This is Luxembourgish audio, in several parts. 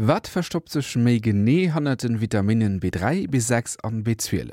Wat verstoppt sech méi genee hannert den Vitaminnen B3, B6 an B12?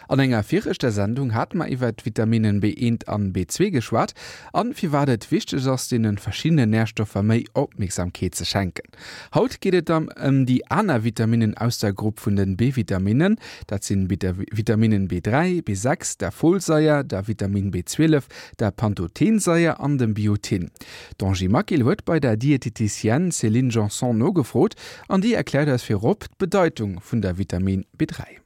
An enger viregter Sendung hate mer iwwert d'Vitaminnen B1 an B2 geschwat an firwat et wichteg ass deenen verschiddenen Närstoffer méi Opmierksamkeet ze schenken. Haut geet et dann ëm déi aner Vitaminnen aus der Grupp vun den B-Vitaminnen. Dat sinn Vitaminnen B3, B6, der Folsaier, der Vitamin B12, der Pantothensaier an dem Biotin. D'Angie Maquil huet bei der Dieteticienne Céline Janson nogefrot an déi erkläert eis virop d'Bedeitung vun der Vitamin B3.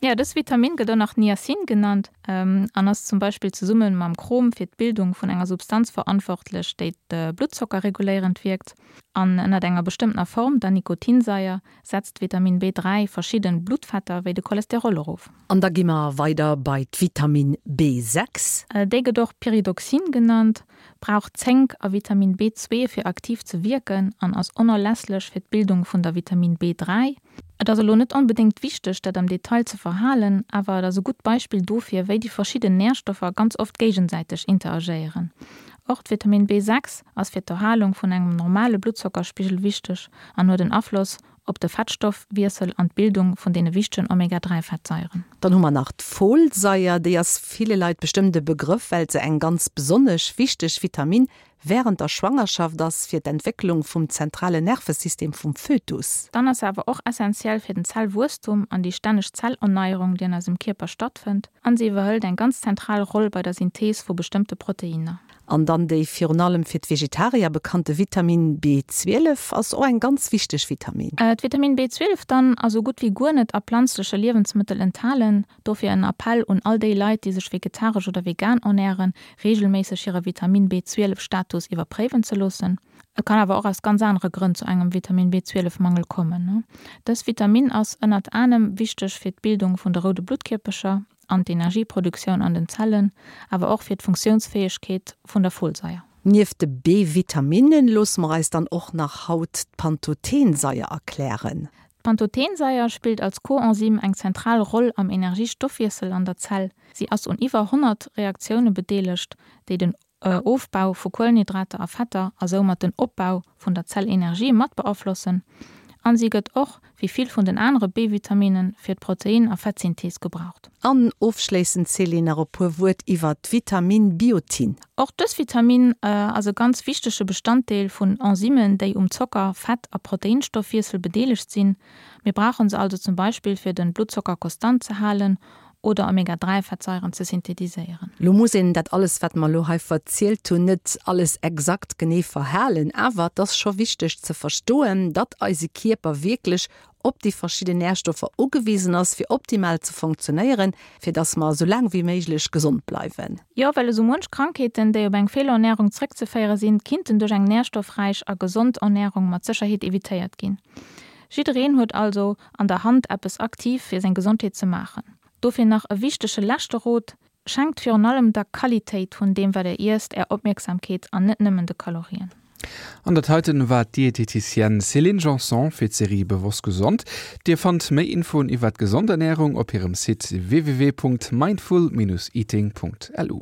Jo, dës Vitamin gëtt och nach Niacin genannt an ass zum Beispill zesumme mam Chrom fir d'Bildung vun enger Substanz verantwortlech, déi de Bluttzocker reguléierend wierkt. An ënnert enger bestëmmtener Form, der Nikotinsaier, setzt d'Vitamin B3 verschidde Bluttfetter wéi de Cholesterol erof. An da gi mer weider bei d'Vitamin B6. Déi gëtt och Pyridoxin genannt, brauch Zénk a Vitamin B2 fir aktiv ze wierken an ass onerlässlech fir d'Bildung vun der Vitamin B3. Et ass elo net onbedéngt wichteg, dat am Detail ze verhalen, awer et ass e gutt Beispill dofir, wéi déi verschidden Närstoffer ganz oft géigesäiteg interagéieren. Och d'Vitamin B6 ass fir d'Erhalung vun engem normale Bluttzockerspigel wichteg an huet en Afloss op de Fettstoffwiessel an d'Bildung vun deene wichtegen Omega 3 Fettsaieren. Dann hu mer nach d'Folsaier. Déi ass ville Leit bestëmmt e Begrëff, well se eng ganz besonnesch wichteg Vitamin Wärend der Schwangerschaft ass fir d'Entwécklung vum zentralen Nervesystem vum Fötus. Dann ass se awer och essentiell fir den Zellwuesstum an déi stänneg Zellernneierung, déi an eisem Kierper stattfënnt, an se iwwerhëlt eng ganz zentral Roll bei der Synthees vu bestëmmte Proteinner. An dann déi virun allem fir d'Vegetarier bekannte Vitamin B12 ass och eng ganz wichteg Vitamin. D'Vitamin B12 dann ass sou gutt wéi guer net a planzleche Liewensmëttel enthalen. Dofir en Appell un all déi Leit, déi sech vegetaresch oder vegan ernären, reegelméisseg hire Vitamin B12 Status iwwerpréiwen ze loossen. Et kann awer och aus ganz anere Grënn zu engem Vitamin B12 Mangel kommen. Dës Vitamin ass ënnert anem wichteg fir d'Bildung vun de roude Bluttkierpercher an d'Energieproduktioun an den Zellen, awer och fir d'Funktiounsfäegkeet vun der Folsaier. Nieft de B-Vitaminnen loosse mer eis dann och nach haut d'Pantothensaier erklären. D'Pantothensaier spillt als Coenzym eng zentral Roll am Energiestoffwiessel an der Zell. Si ass un iwwer 100 Reaktioune bedeelegt, déi den Ofbau vu Kuelenhydrater a Fetter a soumat den Opbau vun der Zellenergie mat beaflossen. An si gëtt och, wéi vill vun den anere B-Vitaminen, fir d'Protein a Fettsynthees gebraucht. An ofschléissend, Céline, nach e puer Wuert iwwer d'Vitamin Biotin. Och dës Vitamin ass e ganz wichtege Bestanddeel vun Enzymen, déi um Zocker-, Fett a Proteinstoffwiessel bedeelegt sinn. Mir brauche se also zum Beispill fir den Bluttzocker konstant ze halen oder Omega 3 Fettsaieren ze synthetiséieren. Lo muss een dat alles wat mer lo hei verzielt hunn net alles exakt genee verhalen, awer et ass scho wichteg ze verstoen, datt eise Kierper wierklech op déi verschidden Närstoffer ugewisen ass fir optimal ze funktionéieren, fir datt mer esou laang wéi méiglech gesond bleiwen. Jo, well esou muench Krankheeten, déi op eng Feelernärung zréckzeféiere sinn, kinnten duerch eng närstoffräich a gesond Ernärung mat Sécherheet evitéiert ginn. Jiddereen huet also an der Hand eppes aktiv fir seng Gesondheet ze maachen. Dofir nach e wichtege leschte Rot, Schenkt virun allem der Qualitéit vun deem wat der iesst är Opmierksamkeet an net nëmmen de Kalorien. An dat heiten war d'Dieteticienne Céline Janson fir d'Serie Bewosst Gesond. Dir fannt méi Infoen iwwert gesond Ernärung op hirem Site www.mindful-eating.lu.